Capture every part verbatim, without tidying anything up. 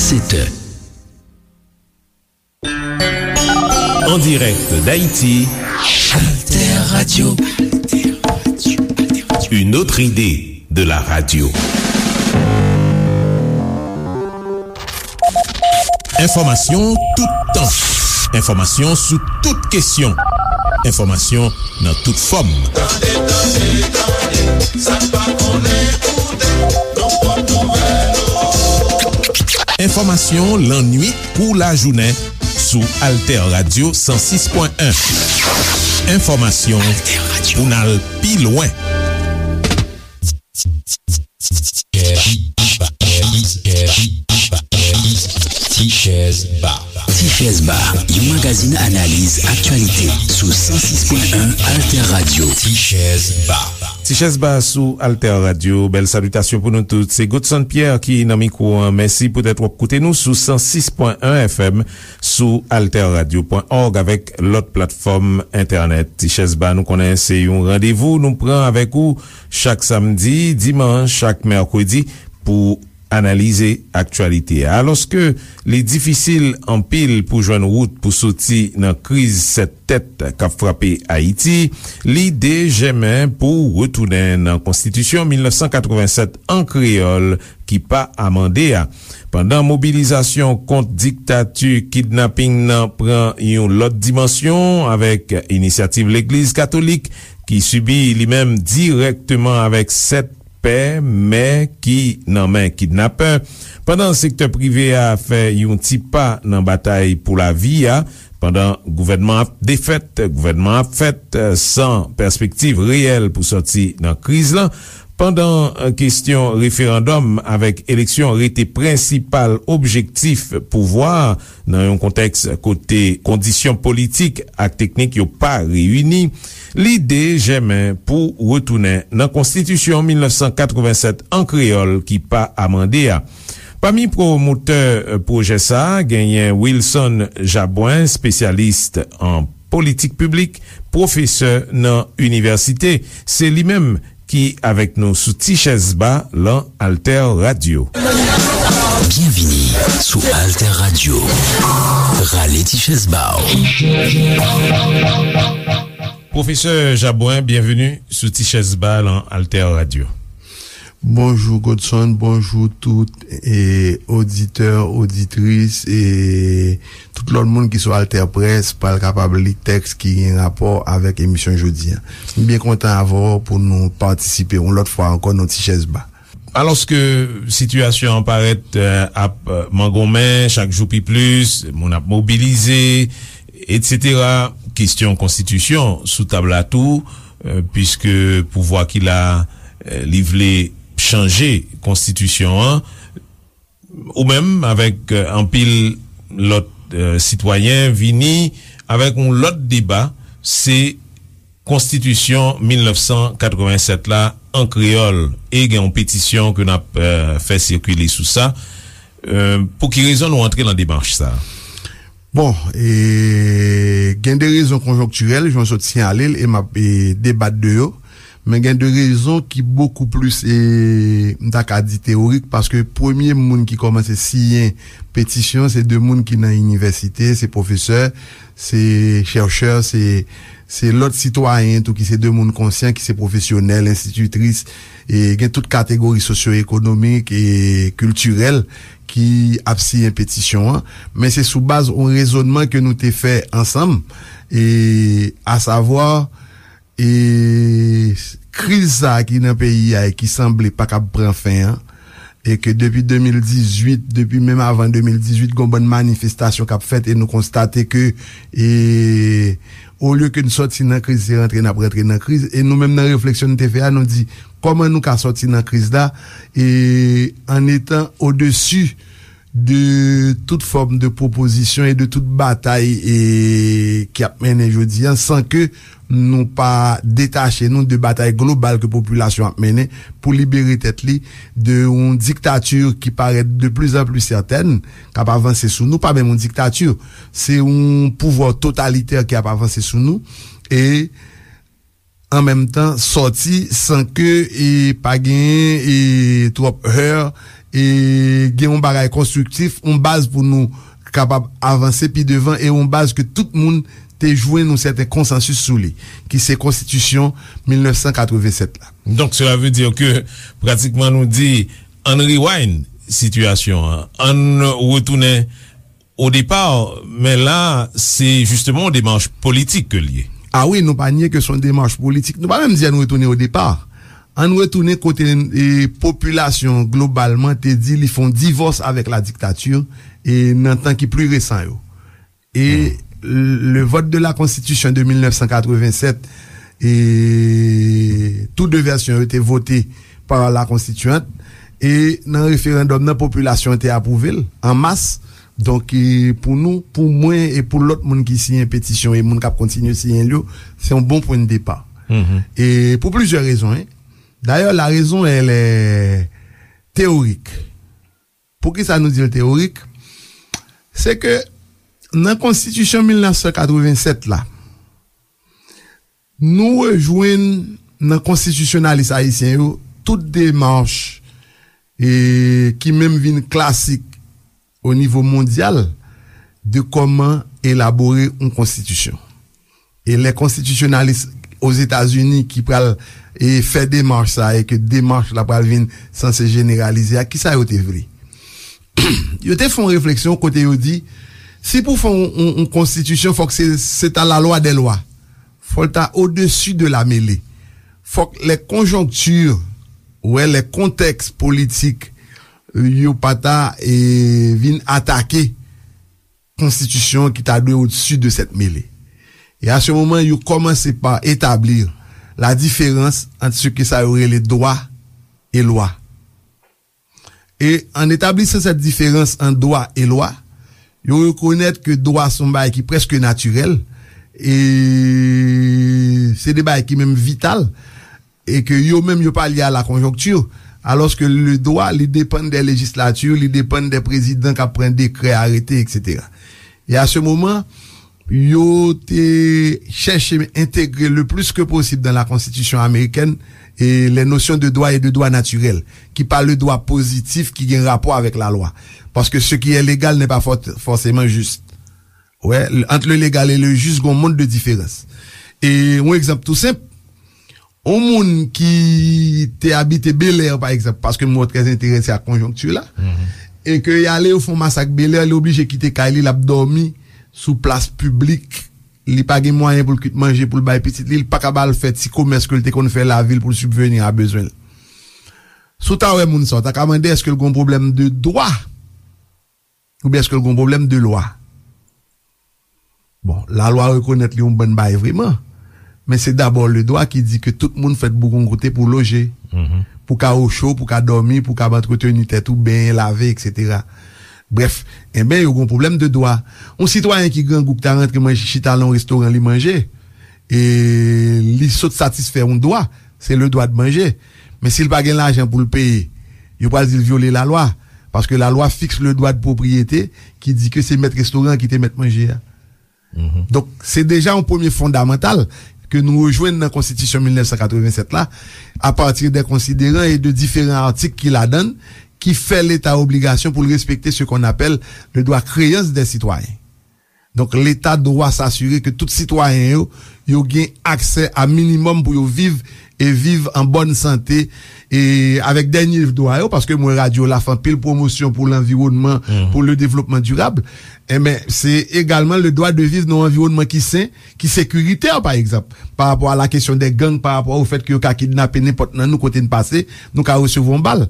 Sept heures. En direct d'Haïti, Alter Radio. Une autre idée de la radio. Enfòmasyon toutan. Enfòmasyon sou tout kesyon. Enfòmasyon nan tout fòm. Tande, tande, tande, sa n pa konnen koute, nou pot nouvèl. Enfòmasyon lannwit kou lajounen sou Alter Radio san sis pwen en. Enfòmasyon pou n al pi lwen. Tichèz Ba. Tichèz Ba, yon magazin analiz aktyalite sou san sis pwen en Alter Radio. Tichèz Ba. Tichèz Ba sou Alter Radio. Bèl salitasyon pou nou tout. Se Godson Pierre ki nan mikwo an. Mèsi poutèt w ap koute nou sou san sis pwen en F M, sou alter radio pwen org avèk lòt platfòm entènèt. Tichèz Ba, nou konnen se yon randevou nou pran avèk ou chak samdi, dimanch ak mèkredi pou analize aktyalite a. Alòske li difisil anpil pou jwenn wout pou soti nan kriz sèt tèt k ap frape Ayiti, lide jèmen pou retounen nan Konstitisyon mil nèf san katreven sèt an kreyòl ki pa amande a. Pandan mobilizasyon kont diktati kidnaping nan pran yon lòt dimansyon avèk inisyativ Legliz Katolik ki sibi li menm dirèkteman avèk sèt pè, mè ki nan men kidnapè, pandan sektè prive a fè yon ti pa nan batay pou lavi a, pandan gouvènman ap defèt, gouvènman ap fèt, eh, san pèspektiv reyèl pou sòti nan kriz lan, pandan, eh, kesyon referandòm avèk eleksyon rete prensipal objektif pouvwa a, nan yon kontèks kote kondisyon politik ak teknik yo pa reyini, lide jèmen pou retounen nan Konstitisyon mil nèf san katreven sèt an kreyòl ki pa amande a. Pami pwomotè, eh, pwojè sa a, genyen Wilson Jabouin, espesyalis an politik piblik, pwofesè nan inivèsite. Se li menm ki avèk nou sou Tichèz Ba lan Alter Radio. Byenvini sou Alter Radio. Rale tichèz ba w. Pwofesè Jabouin, byenveni sou Tichèz Ba lan Alter Radio. Bonjou Godson, bonjou tout, e, oditè, oditris, e tout lòt moun ki sou Alter Press pral kapab li tèks ki gen rapò avèk emisyon jodi a. M byen kontan avè w pou nou patisipe yon lòt fwa ankò nan Tichèz Ba. Alòske sitiyasyon an parèt, eh, ap, eh, mangonmen chak jou pi plis, moun ap mobilize, etsetera, kesyon konstitisyon sou tab la tou, eh, piske pouvwa ki la, eh, li vle chanje konstitisyon an, ou menm avèk, eh, anpil lòt, eh, sitwayen vini avèk yon lòt deba, se Konstitisyon mil nèf san katreven sèt la an kreyòl, e gen yon petisyon ke n ap, eh, fè sikile sou sa. Eh, pou ki rezon nou antre nan demach sa? Bon, e, gen de rezon konjonktirèl, jan w sot siyale l, e m ap, e, debat de yo. Men gen de rezon ki bokou plis, e, m ta ka di teyorik, paske premye moun ki kòmanse siyen petisyon, se de moun ki nan inivèsite, se pwofesè, se chèchè, se, se lòt sitwayen tou ki se de moun konsyan, ki se pwofesyonèl, enstititris, e gen tout kategori sosyo-ekonomik e kiltirèl ki ap siyen petisyon an. Men se sou baz yon rezònman ke nou te fè ansanm, e, asavwa, e, kriz sa a ki nan peyi a e ki sanble pa kab pran fen an, e ke depi de mil dizuit, depi menm avan de mil dizuit, gon bann manifestasyon k ap fèt, e nou konstate ke, e, olye ke n sòti nan kriz, se rantre n ap rantre nan kriz. E nou menm nan refleksyon n te fè a, nou di, kòman nou ka sòti nan kriz la, e, an etan odesi de tout fòm de pwopozisyon e de tout batay, e, ki ap mennen jodi a, san ke nou pa detache nou de batay global ke popilasyon ap mennen pou libere tèt li de yon diktati ki parèt de plus en plus certaine, k ap avanse sou nou, pa menm yon diktati, se yon pouvwa totalitè ki ap avanse sou nou, e an menm tan sòti san ke, e, pa genyen, e, twòp heur, e gen yon bagay konstriktif, yon baz pou nou kapab avanse pi devan, e yon baz ke tout moun te jwenn yon sèten konsansis sou li, ki se konstitisyon mil nèf san katreven sèt la. Donk, sela vle di ke pratikman nou di, ann rewind sitiyasyon an, ann retounen o depa, men la, se jisteman yon demach politik ke l ye. A wi, nou pa nye ke se yon demach politik. Nou pa menm di ann retounen o depa. Ann retounen kote, e, popilasyon globalman te di li fè yon divòs avèk la diktati, e, nan tan ki pli resan yo. E le vote de la Constitution de mil nèf san katreven sèt, e tou de vèsyon yo te vote pa la konstitiyant, e nan referandòm nan, popilasyon an te apwouve l an mas. Donk, e, pou nou, pou mwen e pou lòt moun ki siyen petisyon e moun k ap kontinye siyen l yo, se yon bon pwen de depa. E pou plizyè rezon, en. Dayè, la raison, elle est théorique. Poukisa nou di l teyorik? Se ke nan konstitisyon mil nèf san katreven sèt la, nou rejwenn nan konstitisyonalis ayisyen yo tout demach, e, ki menm vin klasik o nivo mondyal de kòman elabore yon konstitisyon. E lè konstitisyonalis Ozetazini ki pral, e, fè demach sa, e ke demach la pral vin sanse jeneralize a, kisa yo te vle? Yo te fè yon refleksyon kote yo di, si pou fè yon, yon, yon konstitisyon, fòk se, se ta la loi des lois. Fò l ta au-dessus de la mêlée. Fòk les conjonctures, wè, les contextes politiques, yo pa ta, e, vin atake konstitisyon ki ta dwe au-dessus de cette mêlée. E a se moman, yo kòmanse pa etablir la diferans ant se ke sa yo rele dwa e lwa. E an etablisan cette différence ant dwa e lwa, yo rekonèt ke dwa se yon bagay ki prèske natirèl, e se de bagay ki menm vital, e ke yo menm yo pa lye a la konjonkti, alòske le dwa, li depann de lejislati, li depann de prezidan k ap pran dekrè, arete, etsetera. E a se moman, yo te chèche entegre le plus que possible dans la Constitution américaine et les notions de droit et de droit naturel, ki pa le dwa pozitif ki gen rapò avèk lalwa. Paske ce qui est légal n'est pas for- forcément juste. Wè, ant le légal et le juste, gon mond de diferans. E yon egzanp tou senp, yon moun ki te abite Belè, pa egzanp, paske m wè w trè enterese ak konjonkti la, e ke y ale, yo fè yon masak Belè, li oblije kite kay li, l ap dòmi sou plas piblik, li pa gen mwayen pou l kwit manje, pou l bay pitit li, li pa ka ba l fè ti komès ke l te konn fè lavil pou l sibveni a bezwen l. Si w ta wè moun sa, w ta ka mande èske l gon pwoblèm de dwa? Oubyen èske l gon pwoblèm de lwa? Bon, lalwa rekonèt li yon bann bagay vreman, men se dabò le dwa ki di ke tout moun fèt pou gon kote pou loje, pou ka ocho, pou ka dòmi, pou ka antreteni tèt ou, benyen, lave, etsetera. Brèf, enben, yo gon pwoblèm de dwa. Yon sitwayen ki grangou ki ta rantre manje, chita nan yon restoran, li manje, e li sot satisfè yon dwa, se le dwa de manje. Men si l pa gen lajan pou l peye, yo pral di l vyole lalwa. Paske lalwa fiks le dwa de pwopriyete ki di ke se mèt restoran an ki te mèt manje a. Donk, se deja yon premye fondamantal ke nou rejwenn nan Konstitisyon mil nèf san katreven sèt la, apati de konsideran e de diferan atik ki ladan l, ki fè Leta obligasyon pou l respekte ce qu'on appelle le droit créance des citoyens. Donk, Leta dwa s'assurer ke tout sitwayen yo, yo gen aksè a minimòm pou yo viv e viv an bòn sante, e avèk dènye dwa yo, paske m wè radyo la fè anpil pwomosyon pou lanviwònman, pou le développement durable, enben, se egalman le droit de vivre nan yon anviwònman ki sen, ki sekiritè, pa egzanp, pa rapò a la kesyon de gang, pa rapò o fèt ke yo ka kidnape nenpòt nan nou kote n pase, nou ka resevwa yon bal.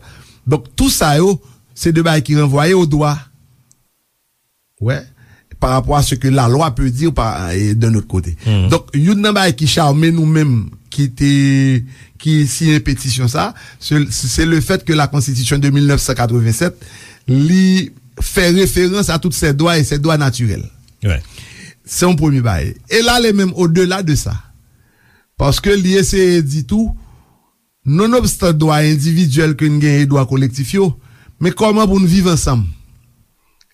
Donk, tou sa yo, se de bagay ki ranvwaye o dwa. Wè, pa rapò a ce que la loi peut dire pa, e, d'un autre côté. Donk, youn nan bagay ki chame nou menm ki te, ki siyen petisyon sa, se, se le fèt ke la Constitution de mil nèf san katreven sèt, li fè referans a tout ces droits et ces droits naturels. Se yon premye bagay. E l ale menm odela de sa. Paske li eseye di tou, nonobstan dwa endividyèl ke n gen e dwa kolektif yo, men kòman pou n viv ansanm?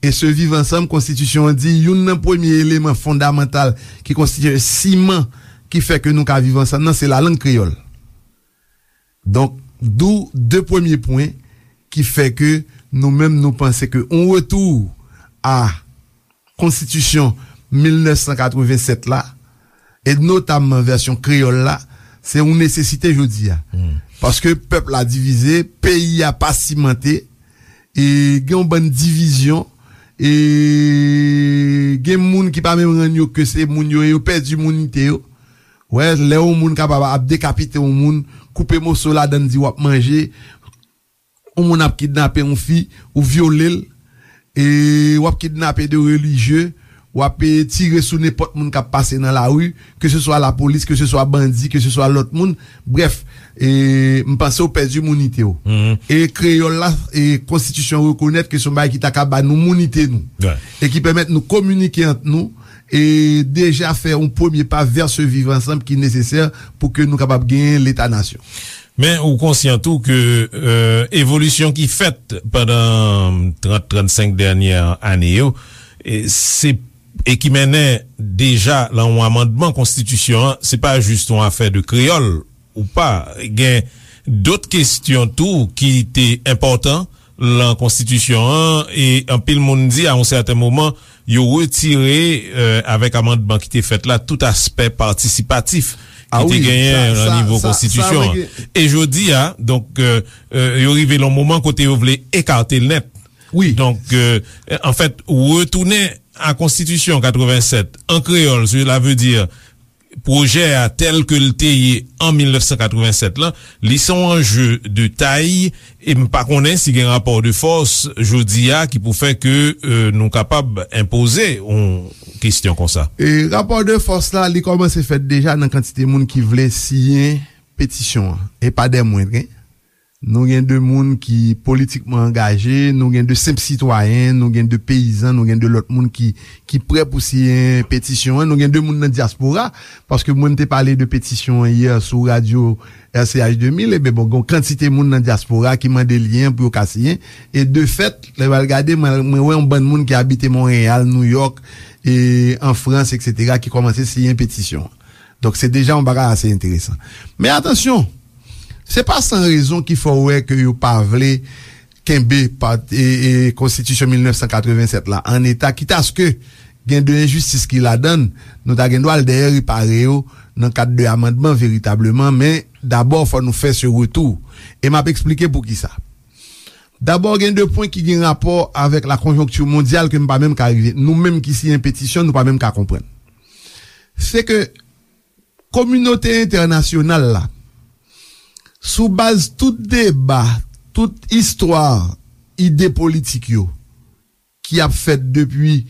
E se viv ansanm, konstitisyon an di, youn nan premye eleman fondamantal ki konstitye siman ki fè ke nou ka viv ansanm nan, se lalang kreyòl. Donk, d'où de premye pwen ki fè ke nou menm, nou panse ke yon retou a konstitisyon mil nèf san katreven sèt la, e notamman vèsyon kreyòl la, se yon nesesite jodi a. Paske pèp la divize, peyi a pa simante, e gen yon bann divizyon, e gen moun ki pa menm rann yo ke se moun yo ye, yo pèdi mounite yo. Wè, lè yon moun kapab ap dekapite yon moun, koupe moso ladann, di w ap manje, yon moun ap kidnape yon fi, ou vyole l, e w ap kidnape de relijye, w ap, e, tire sou nenpòt moun k ap pase nan lari, ke se swa lapolis, ke se swa bandi, ke se swa lòt moun. Brèf, e, m panse w pèdi mounite w. E kreyòl la, e konstitisyon rekonèt ke se yon bagay ki ta ka ba nou mounite nou. E ki pèmèt nou kominike ant nou, e deja fè yon premye pa vè se viv ansanm ki nesesè pou ke nou kapab genyen leta nasyon. Men ou konsyan tou ke, e, evolisyon ki fèt pandan trant, trannsenk dènyè ane yo, e, se, e ki mennen deja lan yon amandman konstitisyon an, se pa jis yon afè de kreyòl ou pa. Gen dòt kesyon tou ki te enpòtan lan konstitisyon an, e anpil moun di a yon sèten moman, yo retire, e, avèk amandman ki te fèt la, tout aspè patisipatif ki te genyen lan nivo konstitisyon an. E jodi a, donk, e, e, yo rive lan yon moman kote yo vle ekate l nèt. Donk, e, anfèt, retounen a konstitisyon katreven sèt an kreyòl, cela veut dire pwojè a tèl ke l te ye an mil nèf san katreven sèt lan, li se yon anje de tay, e m pa konnen si gen rapò de fòs jodi a ki pou fè ke, e, nou kapab enpoze yon kesyon konsa. E rapò de fòs la, li kòmanse fèt deja nan kantite moun ki vle siyen petisyon an, e pa dè mwendren. Nou gen de moun ki politikman angaje, nou gen de senp sitwayen, nou gen de peyizan, nou gen de lòt moun ki, ki prè pou siyen petisyon an, nou gen de moun nan dyaspora, paske mwen m te pale de petisyon an yè sou radyo R C H de mil, eben bon, gen yon kantite moun nan dyaspora ki mande li an pou yo ka siyen, e de fèt, lè w al gade, mwen, mwen wè yon bann moun ki abite Monreyal, Nouyòk, e an Frans, etsetera, ki kòmanse siyen petisyon an. Donk, se deja yon bagay ase enteresan. Men atansyon, se pa san rezon ki fè w wè ke yo pa vle kenbe pa, e, e, konstitisyon mil nèf san katreven sèt la an eta, kitaske gen de enjistis ki ladan l, nou ta gen dwa al dèyè repare yo nan kad de amandman veritableman, men dabò, fò nou fè se retou. E m ap eksplike poukisa. Dabò, gen de pwen ki gen rapò avèk la konjonkti mondyal ke m pa menm ka rive. Nou menm ki siyen petisyon, nou pa menm ka konprann. Se ke kominote entènasyonal la, sou baz tout deba, tout istwa ide politik yo, ki ap fèt depi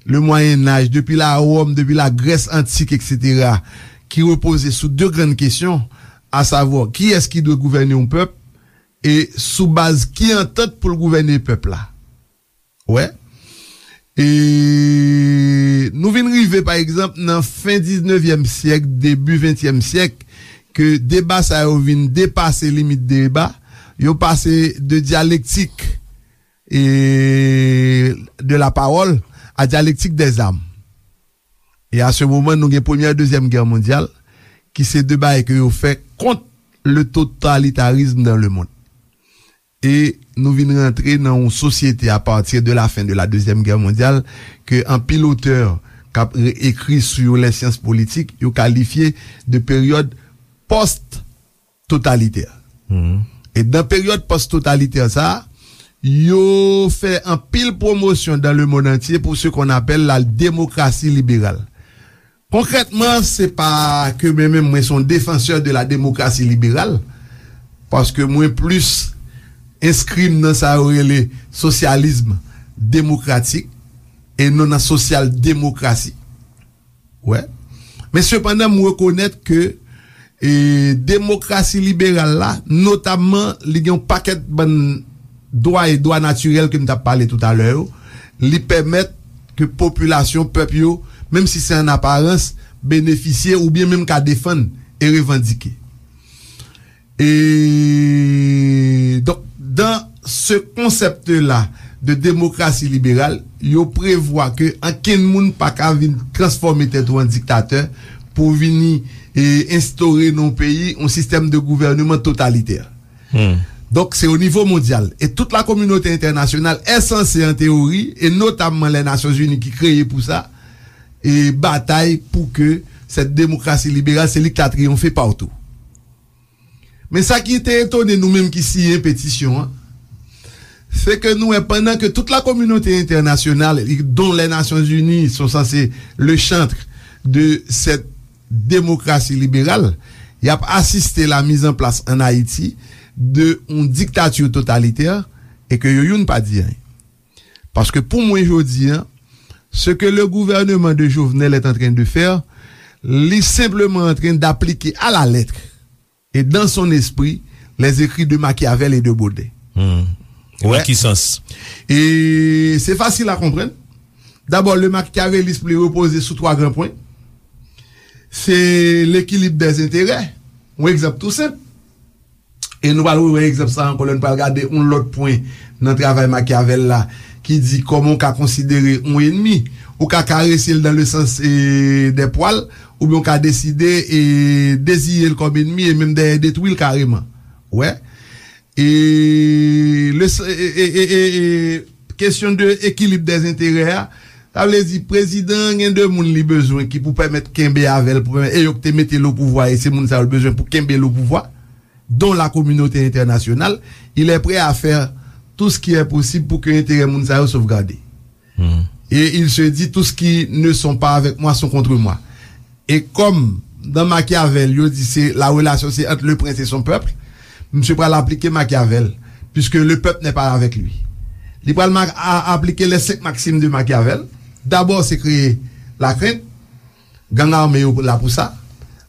le Mwayen Aj, depi la Wòm, depi la Grès antik, etsetera, ki repoze sou de grann kesyon, asavwa, kiyès ki dwe gouvène yon pèp, e sou baz ki antant pou l gouvène pèp la. Wè. E nou vin rive, pa egzanp, nan fen diznevyèm syèk, debi ventyèm syèk, ke deba sa yo vin depase limit deba, yo pase de dyalektik, e, de la parole à dialectique des armes. E a se moman, nou gen Premyè, Dezyèm Gè Mondyal, ki se de bagay ke yo fè kont le totalitarisme dans le monde. E nou vin rantre nan yon sosyete a pati de la fen de la Dezyèm Gè Mondyal ke anpil otè k ap re-, ekri sou yo lè syans politik, yo kalifye de peryòd pòst totalitè. E dan peryòd pòst totalitè sa a, yo fè anpil pwomosyon dans le monde entier pour ce qu'on appelle la démocratie libérale. Konkrètman, se pa ke mwen menm, mwen se yon défenseur de la démocratie libérale, paske mwen plis enskri m nan sa yo rele sosyalism demokratik e non nan sosyal demokrasi. Wè. Men sepandan, m rekonèt ke, e, demokrasi liberal la, notamman, li gen yon pakèt bann dwa e dwa natirèl ke m t ap pale toutalè yo, li pèmèt ke popilasyon, pèp yo, menm si se an aparans, benefisye oubyen menm ka defann e revandike. E, donk, dans ce concept-là de démocratie libérale, yo prevwa ke ankenn moun pa ka vin transfòme tèt ou an diktatè pou vini, e, enstore nan yon peyi yon sistèm de gouvèneman totalitè. Hmm. Donk, se o nivo mondyal. E tout la kominote entènasyonal est censée, an teyori, e notamman les Nations Unies ki kreye pou sa, e batay pou ke cette démocratie libérale, se li ki ta triyonfe patou. Men sa ki te etone nou menm ki siyen petisyon an, se ke nou wè pandan ke tout la kominote entènasyonal, dont les Nations Unies sont censées le chantre de cette démocratie libérale, y ap asiste la mise en place en Haïti de yon diktati totalitè e ke yo youn pa di anyen. Paske pou mwen jodi an, ce que le gouvernement de Jovenel est en train de faire, li senpleman antren d'aplike à la lettre et dans son esprit les écrits de Machiavel et de Baudet. Hmm. Nan ki sans? E se fasil a konprann. Dabò, le machiavélisme li repoze sou twa gran pwen. Se l'équilibre des intérêts. Yon egzanp tou senp. E nou pral rewè egzanp sa ankò lè nou pral gade yon lòt pwen nan travay Machiavel la ki di kòman w ka konsidere yon enmi. Ou ka karese l dans le sens e, des poils, oubyen w ka deside e, deziye l kòm enmi e menm dèyè detwi l kareman. Wè. E, le, e, e, e, e, e, kesyon de ekilib dèzenterè a, sa vle di prezidan an gen de moun li bezwen ki pou pèmèt kenbe avè l, pou pèmèt, e yo ki te mete l o pouvwa, e se moun sa yo l bezwen pou kenbe l o pouvwa, dont la communauté internationale, il est prêt à faire tout ce qui est possible pour que enterè moun sa yo sovgade. Et il se dit, tous ceux qui ne sont pas avec moi sont contre moi. E kòm dans Machiavel, yo di se la relation c'est entre le prince et son peuple, misye pral aplike Machiavel, puisque le peuple n'est pas avec lui. Li pral ma- a- aplike les cinq maximes de Machiavel. Dabò, se kreye lakrent. Gang ame yo la pou sa.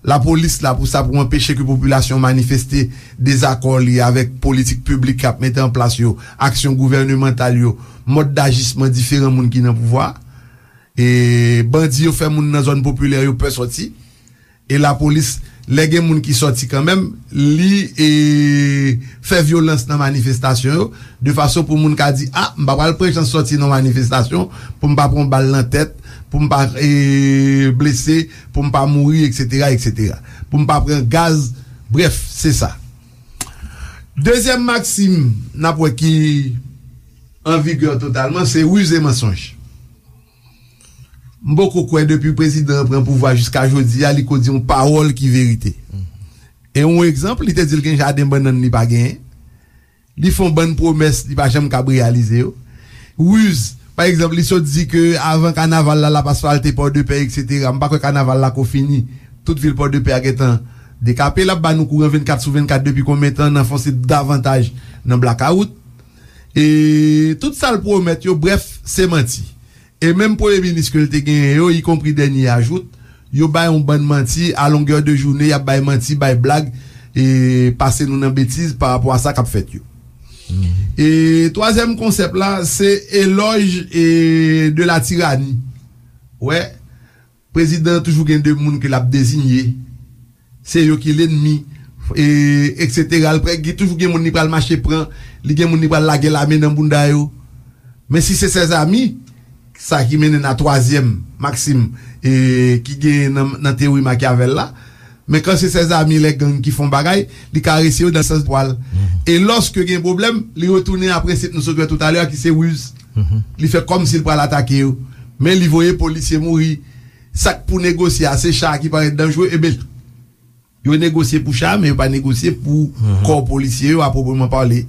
Lapolis la pou sa, pou anpeche ke popilasyon manifeste dezakò li avèk politik piblik k ap mete an plas yo, aksyon gouvènemantal yo, mòd dajisman diferan moun ki nan pouvwa. E bandi yo fè moun nan zòn popilè yo pè sòti. E lapolis, lè gen moun ki sòti kanmenm, li e, fè vyolans nan manifestasyon yo, de fason pou moun ka di, a, m pa pral pran chans sòti nan manifestasyon pou m pa pran bal nan tèt, pou m pa e, blese, pou m pa mouri, etsetera, etsetera. Pou m pa pran gaz, brèf, se sa. Dezyèm maksim n ap wè ki an vigè totalman, se riz e mansonj. M poko kwè depi prezidan an pran pouvwa jiska jodi a, li ko di yon pawòl ki verite. E yon egzanp, li te di l gen jaden bannann li pa genyen. Li fè yon bann pwomès, li pa janm kab reyalize yo. Riz, pa egzanp, li sot di ke avan kanaval la, l ap asfalte Pòdepè, etsetera. M pa kwè kanaval la ko fini. Tout vil Pòdepè a gentan dekape. L ap ba nou kouran vennkat sou vennkat depi konbyen tan, n anfonse davantaj nan blakawout. E tout sa l pwomèt yo, brèf, se manti. E menm premye minis ke l te genyen yo, ikonpri dènye ajout, yo bay yon bann manti, a longè de jounen, y ap bay manti, bay blag, e pase nou nan betiz pa rapò a sa k ap fèt yo. E twazyèm konsèp la, se elòj e de la tirani. Wè, prezidan an toujou gen de moun ke l ap deziye. Se yo ki lènmi, e, etsetera. L prè, gen toujou gen moun li pral mache pran, li gen moun li pral lage lame nan bounda yo. Men si se ses amis, sa ki mennen n a twazyèm maksim e, ki genyen nan, nan teyori Machiavel la, men kan se ses amis lè gang ki fè yon bagay, li karese yo nan sans pwal. E lòske gen pwoblèm, li retounen a prensip nou sot wè toutalè a ki se riz. Li fè kòmsi l pral atake yo. Men li voye polisye mouri. Sa k pou negosye a, se cha a ki parèt danjre, ebyen, yo negosye pou cha, men yo pa negosye pou kò polisye yo, a pwopreman pale.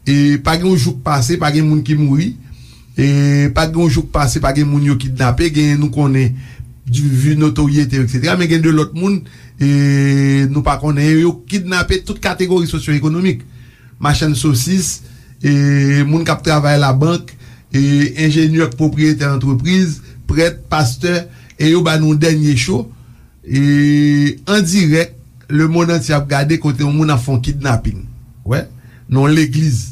E pa gen yon jou k pase, pa gen moun ki mouri. E pa gen yon jou k pase, pa gen moun yo kidnape. Gen, nou konnen, di- vi notoryete, etsetera. Men gen de lòt moun, e nou pa konnen. Yo kidnape tout kategori sosyo-ekonomik. Machann sosis, e moun k ap travay labank, e enjenyè k pwopriyetè antrepriz, prèt, pastè, e yo ba nou dènye cho. E an dirèk, lemonn antye ap gade kote yon moun ap fè yon kidnaping. Wè, nan yon legliz.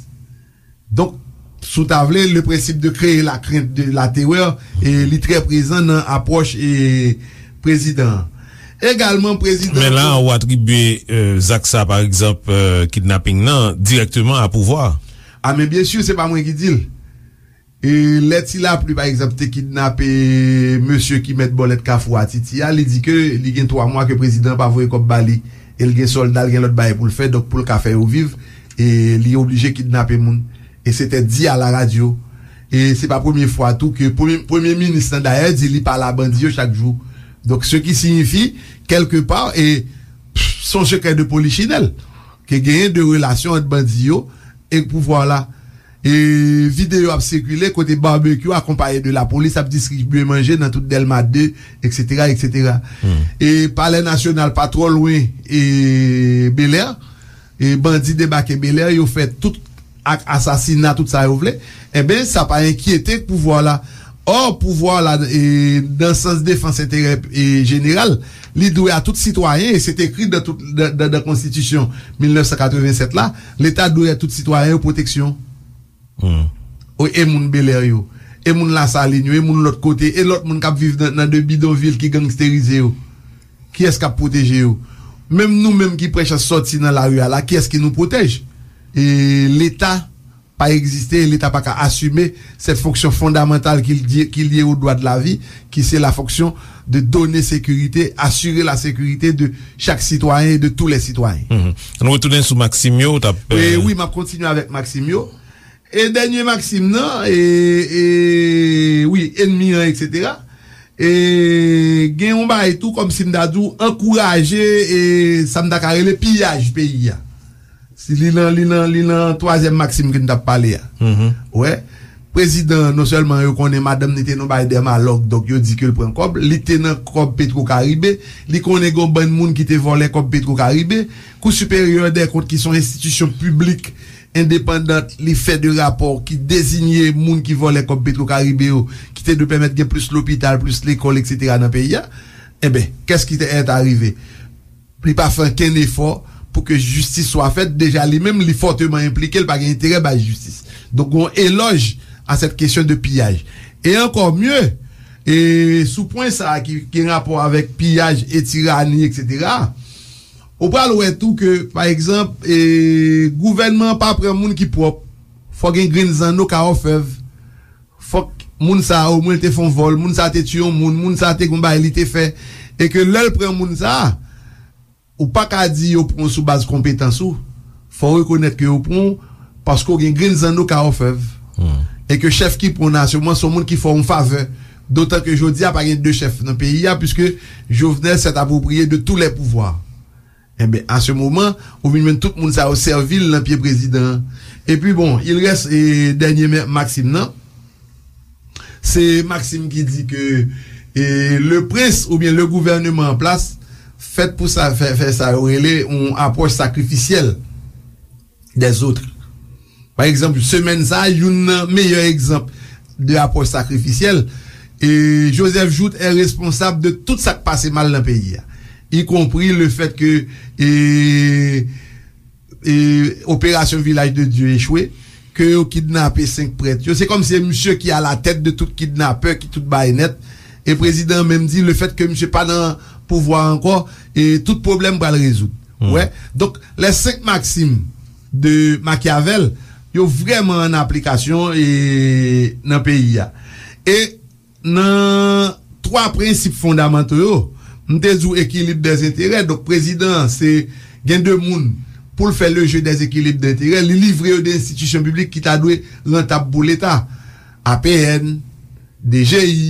Donk, si w ta vle, le principe de créer la crainte, de la terreur, e li trè prezan nan apwòch e prezidan an. Egalman, prezidan. Men la, ou atribye e, zak sa, pa egzanp, e, kidnaping nan, dirèkteman a pouvwa. A, men byen si, se pa mwen ki di l. E lè Ti Lapli, pa egzanp, te kidnape mesye ki mèt bòlèt Kafou a Titi a, li di ke li gen twa mwa ke prezidan an pa voye kòb ba li. E l gen sòlda, l gen lòt bagay pou l fè, donk pou l ka fè yo viv, E li oblije kidnape moun. E se te di a la radyo. E se pa premye fwa tou ke premye, premye minis lan dayè di li pale a bandi yo chak jou. Donk, ce qui signifie, kèlke pa, e pff, se yon sekrè de polichinèl ke genyen de relasyon ant bandi yo e pouvwa la. E videyo ap sikile kote Barbecue akonpaye de lapolis ap distribye manje nan tout Dèlma de, et cetera, et cetera. E Palè Nasyonal pa twò lwen e Bèlè. E bandi debake Bèlè, yo fè tout ak asasina, tout sa yo vle. Enben, sa pa enkyete pouvwa la. Ò, pouvwa la, e, nan sans defans enterè e jeneral, li dwe a tout sitwayen, e se te ekri nan tout, nan, nan, nan konstitisyon mil nèf san katreven sèt la, Leta dwe a tout sitwayen yo pwoteksyon. O, e moun Bèlè yo, e moun Lasalin yo, e moun lòt kote, e lòt moun k ap viv nan, nan de bidonvil ki gangsterize yo. Kiyès k ap pwoteje yo? Menm nou menm ki pran chans sòti nan lari a la, kiyès ki nou pwotèj? E Leta pa egziste, e Leta pa ka asime cette fonction fondamentale qu'il di- qu'il y est au droit de la vie, qui c'est la fonction de donner sécurité, assurer la sécurité de chaque citoyen et de tous les citoyens. Nou retounen sou Maxime yo, ou t ap. E wi, m ap kontinye avèk Maxime yo. E dènye Maxime nan, e, e wi, enmi an, et cetera. E gen yon bagay tou, kòmsi m ta di w, ankouraje e sa m ta ka rele piyaj peyi a. Si li nan, li nan, li nan twazyèm Maxime ke n t ap pale a. Wè, prezidan, non sèlman yo konnen madanm li te nan bagay dèmalòg, donk yo di ke l pran kòb, li te nan kòb Petro Caribe, li konnen gen yon bann moun ki te vòlè kòb Petro Caribe. Kou Siperyè dè Kont ki se yon enstitisyon piblik endepandant, li fè de rapò ki dezinye moun ki vòlè kòb Petro Caribe yo, ki te dwe pèmèt gen plis lopital, plis lekòl, et cetera nan peyi a. Enben, qu'est-ce qui est arrivé? Li pa fè ankenn efò pou ke jistis swa fèt, deja li menm li fòteman enplike, li pa gen enterè bay jistis. Donk gon elòj a cette question de piyaj. E encore mieux, e sou pwen sa a ki gen rapò avèk piyaj e tirani, et cetera, ou pral wè tou ke, pa egzanp, e gouvènman an pa pran moun ki pwòp. Fò gen grenn zanno ka òfèv. Fòk moun sa a omwen te fè yon vòl, moun sa a te tiye yon moun, moun sa a te gon bagay li te fè. E ke lè l pran moun sa a, ou pa ka di yo pran w sou baz konpetans ou. Fò w rekonèt ke yo pran w paske w gen grenn zanno ka òfèv. E ke chèf ki pran w nan asirans se yon moun ki fè w yon favè. Dotan ke jodi a pa gen de chèf nan peyi a, puiske Jovenel s'est approprié de tous les pouvoirs. Enben, a se moman, ou vin jwenn tout moun sa yo sèvi l nan pye prezidan an. Epi bon, il reste e dènye Maxime nan. Se Maxime ki di ke e le prince oubyen le gouvernement en place fèt pou sa fè, fè sa yo rele yon apwòch sakrifisyèl des autres. Pa egzanp, semèn sa a, youn nan meyè egzanp de apwòch sakrifisyèl, e Joseph Jouthe est responsable de tout sa k pase mal nan peyi a, y compris le fait que e, e operasyon Vilaj de Dye echwe, ke yo kidnape senk prèt yo. Se kòmsi se misye ki a la tèt de tout kidnapè, ki tout bagay nèt. E prezidan an menm di, le fait que misye pa nan pouvwa ankò, e tout pwoblèm pral rezoud. Wè. Donk, les cinq maximes de Machiavel, yo vrèman an aplikasyon e nan peyi a. E nan twa prensip fondamanto yo, m te di w ekilib dèzenterè. Donk, prezidan an, se gen de moun pou l fè le jeu des équilibres d'intérêt, li livre yo de enstitisyon piblik ki ta dwe rantab pou Leta. A P N, D G I,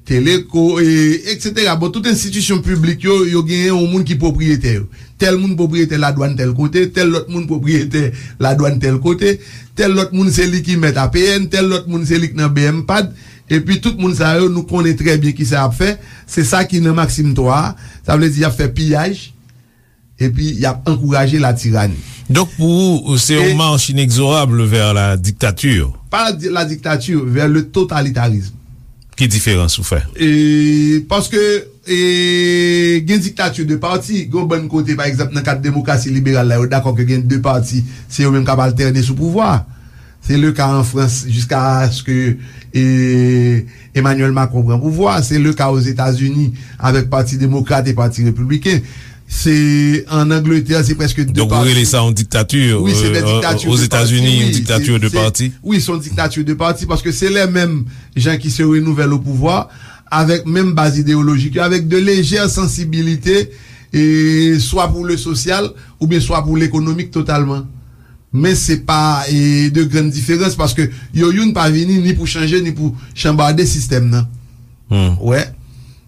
Teleco, e, et cetera. Bon, tout enstitisyon piblik yo, yo genyen yon moun ki pwopriyetè yo. Tèl moun pwopriyetè ladwàn tèl kote, tèl lòt moun pwopriyetè ladwàn tèl kote, tèl lòt moun se li ki mèt A P N, tèl lòt moun se li k nan B M pad, epi tout moun sa yo, nou konnen trè byen kisa y ap fè, se sa ki nan Maxime twa a, sa vle di y ap fè piyaj, epi y ap ankouraje latirani. Donk, pou ou, se yon mach inexorable vers la dictature. Pas la, la dictature, vers le totalitarisme. Ki diferans ou fè? E, paske, e, gen diktati de pati, gen yon bann kote, pa egzanp, nan kad demokrasi liberal la, yo dakò ke gen de pati, se yo menm k ap altène sou pouvwa. Se le ka an Frans, jiskaske, e, Emmanuel Macron pran pouvwa. Se le ka Ozetazini avèk Pati Demokrat e Pati Repibliken. Se an Angletè, se prèske de pati. Donk, ou rele sa yon diktati? Wi, se de diktati de pati. Ozetazini, yon diktati de pati? Wi, se yon diktati de pati, paske se lè menm jan ki se renouvèl o pouvwa, avèk menm baz ideyolojik yo, avèk de lejè sansibilite, e swa pou le sosyal, oubyen swa pou lekonomik totalman. Men se pa e, de grann diferans, paske yo youn pa vini ni pou chanje, ni pou chanbade sistèm nan. Wè.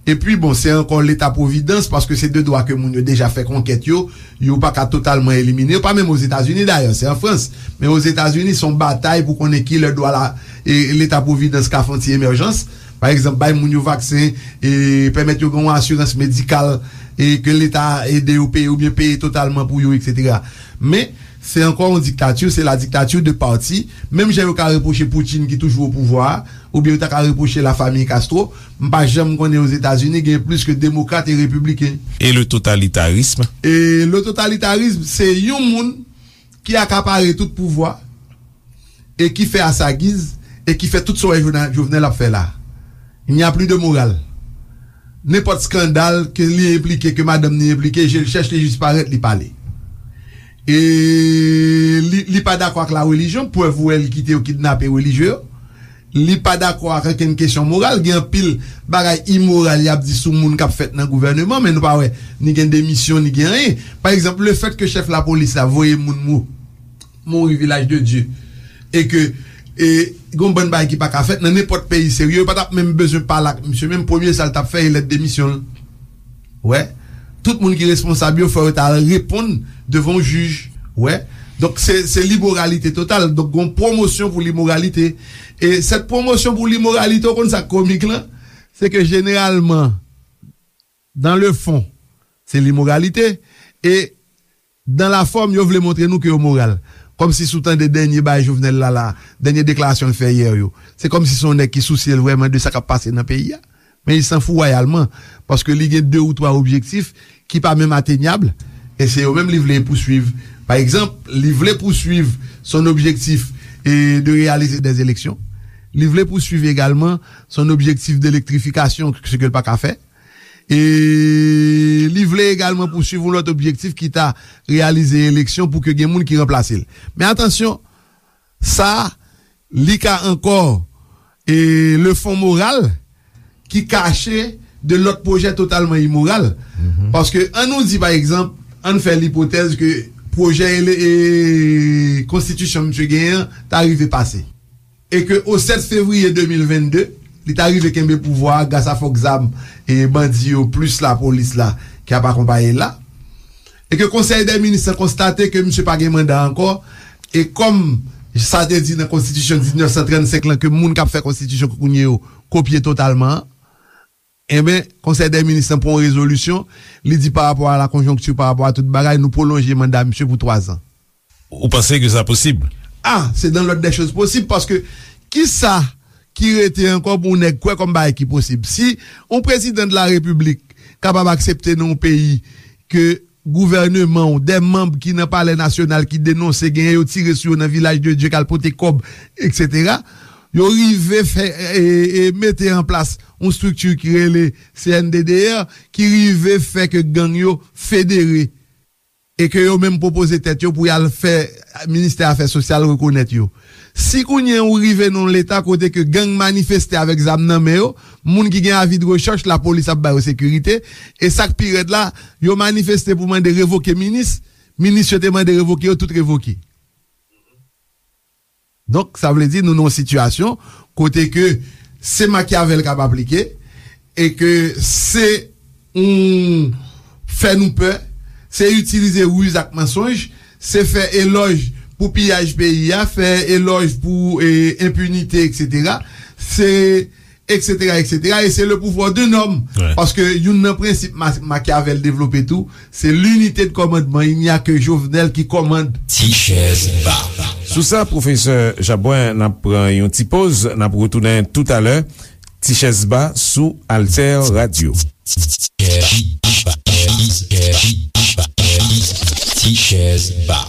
Epi, bon, se ankò Leta Pwovidans, paske se de dwa ke moun yo deja fè konkèt yo, yo pa ka totalman elimine yo, pa menm Ozetazini dayè, se an Frans. Men Ozetazini, se yon batay pou konnen ki lè dwa la, e, Leta Pwovidans ka fè yon ti emèjans. Pa egzanp, bay moun yo vaksen, e, pèmèt yo gen yon asirans medikal, e, ke Leta ede yo peye oubyen peye totalman pou yo, etsetera. Men, se ankò yon diktati, se la dictature de parti. Menm jan yo ka repwoche Putin ki toujou o pouvwa a, oubyen yo ta ka repwoche la famille Castro, m pa janm konnen Ozetazini gen plis ke demokrat e repibliken. E le totalitarisme? E le totalitarisme, se yon moun ki akapare tout pouvwa e ki fè a sa giz e ki fè tout sa w wè Jovena-, Jovenel ap fè la. Il n'y a plus de morale. Nenpòt skandal ke li enplike, ke madanm li enplike, je l chèch, li jis parèt, li pale. E li, li pa dakò ak la relijyon, prèv ou wè li kite yo kidnape relijye yo. Li pa dakò ak okenn kesyon moral. Gen anpil bagay imoral y ap di sou moun k ap fèt nan gouvèneman, men nou pa wè ni gen demisyon, ni gen anyen. Pa egzanp, lefèt ke chèf lapolis la voye moun mou-, mouri Vilaj de Dye, e ke, e, gon bann bagay ki pa ka fèt nan nenpòt peyi serye, yo pa t ap menm bezwen pale ak misye, menm premye sa l t ap fè, e lèt demisyon l. Wè. Tout moun ki responsab yo, fò yo ta al reponn devan yon jij. Wè. Donk, se, se limoralite total. Donk, gon pwomosyon pou limoralite. E sèt pwomosyon pou limoralite, ou konn sa k komik lan? Se ke jeneralman, dans le fond, se limoralite. E dans la forme, yo vle montre nou ke yo moral. Kòmsi si w tande dènye bagay Jovenel la, la, dènye deklarasyon l fè yè yo. Se kòmsi se yon nèg ki sousye l vrèman de sa k ap pase nan peyi a. Men li sanfou wayalman, paske li gen de ou twa objektif ki pa menm atenyab, e se yo menm li vle pouswiv. Pa egzanp, li vle pouswiv son objektif e de réaliser des élections. Li vle pouswiv egalman son objektif de elektrifikasyon, se ke l pa ka fè. E li vle egalman pouswiv yon lòt objektif ki ta réalize eleksyon pou ke gen moun ki ranplase l. Men atansyon, sa, li ka ankò, e, le fond moral ki kache de lòt pwojè totalman imoral. Paske, ann nou di, pa egzanp, ann fè lipotèz ke pwojè ele-, e, konstitisyon misye genyen an ta rive pase. E ke o sèt fevriye de mil vennde, li ta rive kenbe pouvwa a gras a fòk zam e bandi yo plis lapolis la ki ap akonpaye l la. E ke Konsèy dè Minis lan konstate ke misye pa gen manda ankò, e kòm sa te di nan konstitisyon diznèf san trannsenk lan ke moun k ap fè konstitisyon kounye yo kopye totalman an, enben, Konsèy dè Minis lan pran yon rezolisyon, li di pa rapò a la konjonkti, pa rapò a tout bagay, nou pwolonje manda misye pou twazan. Ou panse ke sa posib? Ah, c'est dans l'ordre des choses possibles, paske kisa ki rete ankò pou yon nèg kwè kòm bagay ki posib? Si yon prezidan de la repiblik kapab aksepte nan yon peyi ke gouvèneman w, de manm ki nan palè nasyonal ki denonse genyen yo tire sou yo nan Vilaj de Dye k al pote kòb, etsetera, yo rive fè, e, e, mete an plas yon estrikti ki rele C N D D R, ki rive fè ke gang yo federe e ke yo menm pwopoze tèt yo pou y al fè ministè afè sosyal rekonèt yo. Si kounye a ou rive nan yon leta kote ke gang manifeste avèk zam nan men yo, moun ki gen avi de rechèch, lapolis ap ba yo sekirite, e sa k pi rèd la, yo manifeste pou mande revoke minis, minis yo te mande revoke yo, tout revoke. Donk, sa vle di nou nan yon sitiyasyon kote ke se Machiavel k ap aplike e ke se yon fè nou pè, se itilize riz ak mansonj, se fè elòj pou piyaj peyi a, fè elòj pou, e, enpinite, etsetera. Se etsetera, etsetera, e se le pouvoir d'un homme. Paske youn nan prensip Ma-, Machiavel devlope tou, se l'unité de commandement, il n'y a que Jovenel qui commande. Ti chèz ba. Sou sa, pwofesè Jabwen, n ap pran yon ti poz, n ap retounen toutalè. Ti chèz ba sou Alter Radio. Ti chèz ba.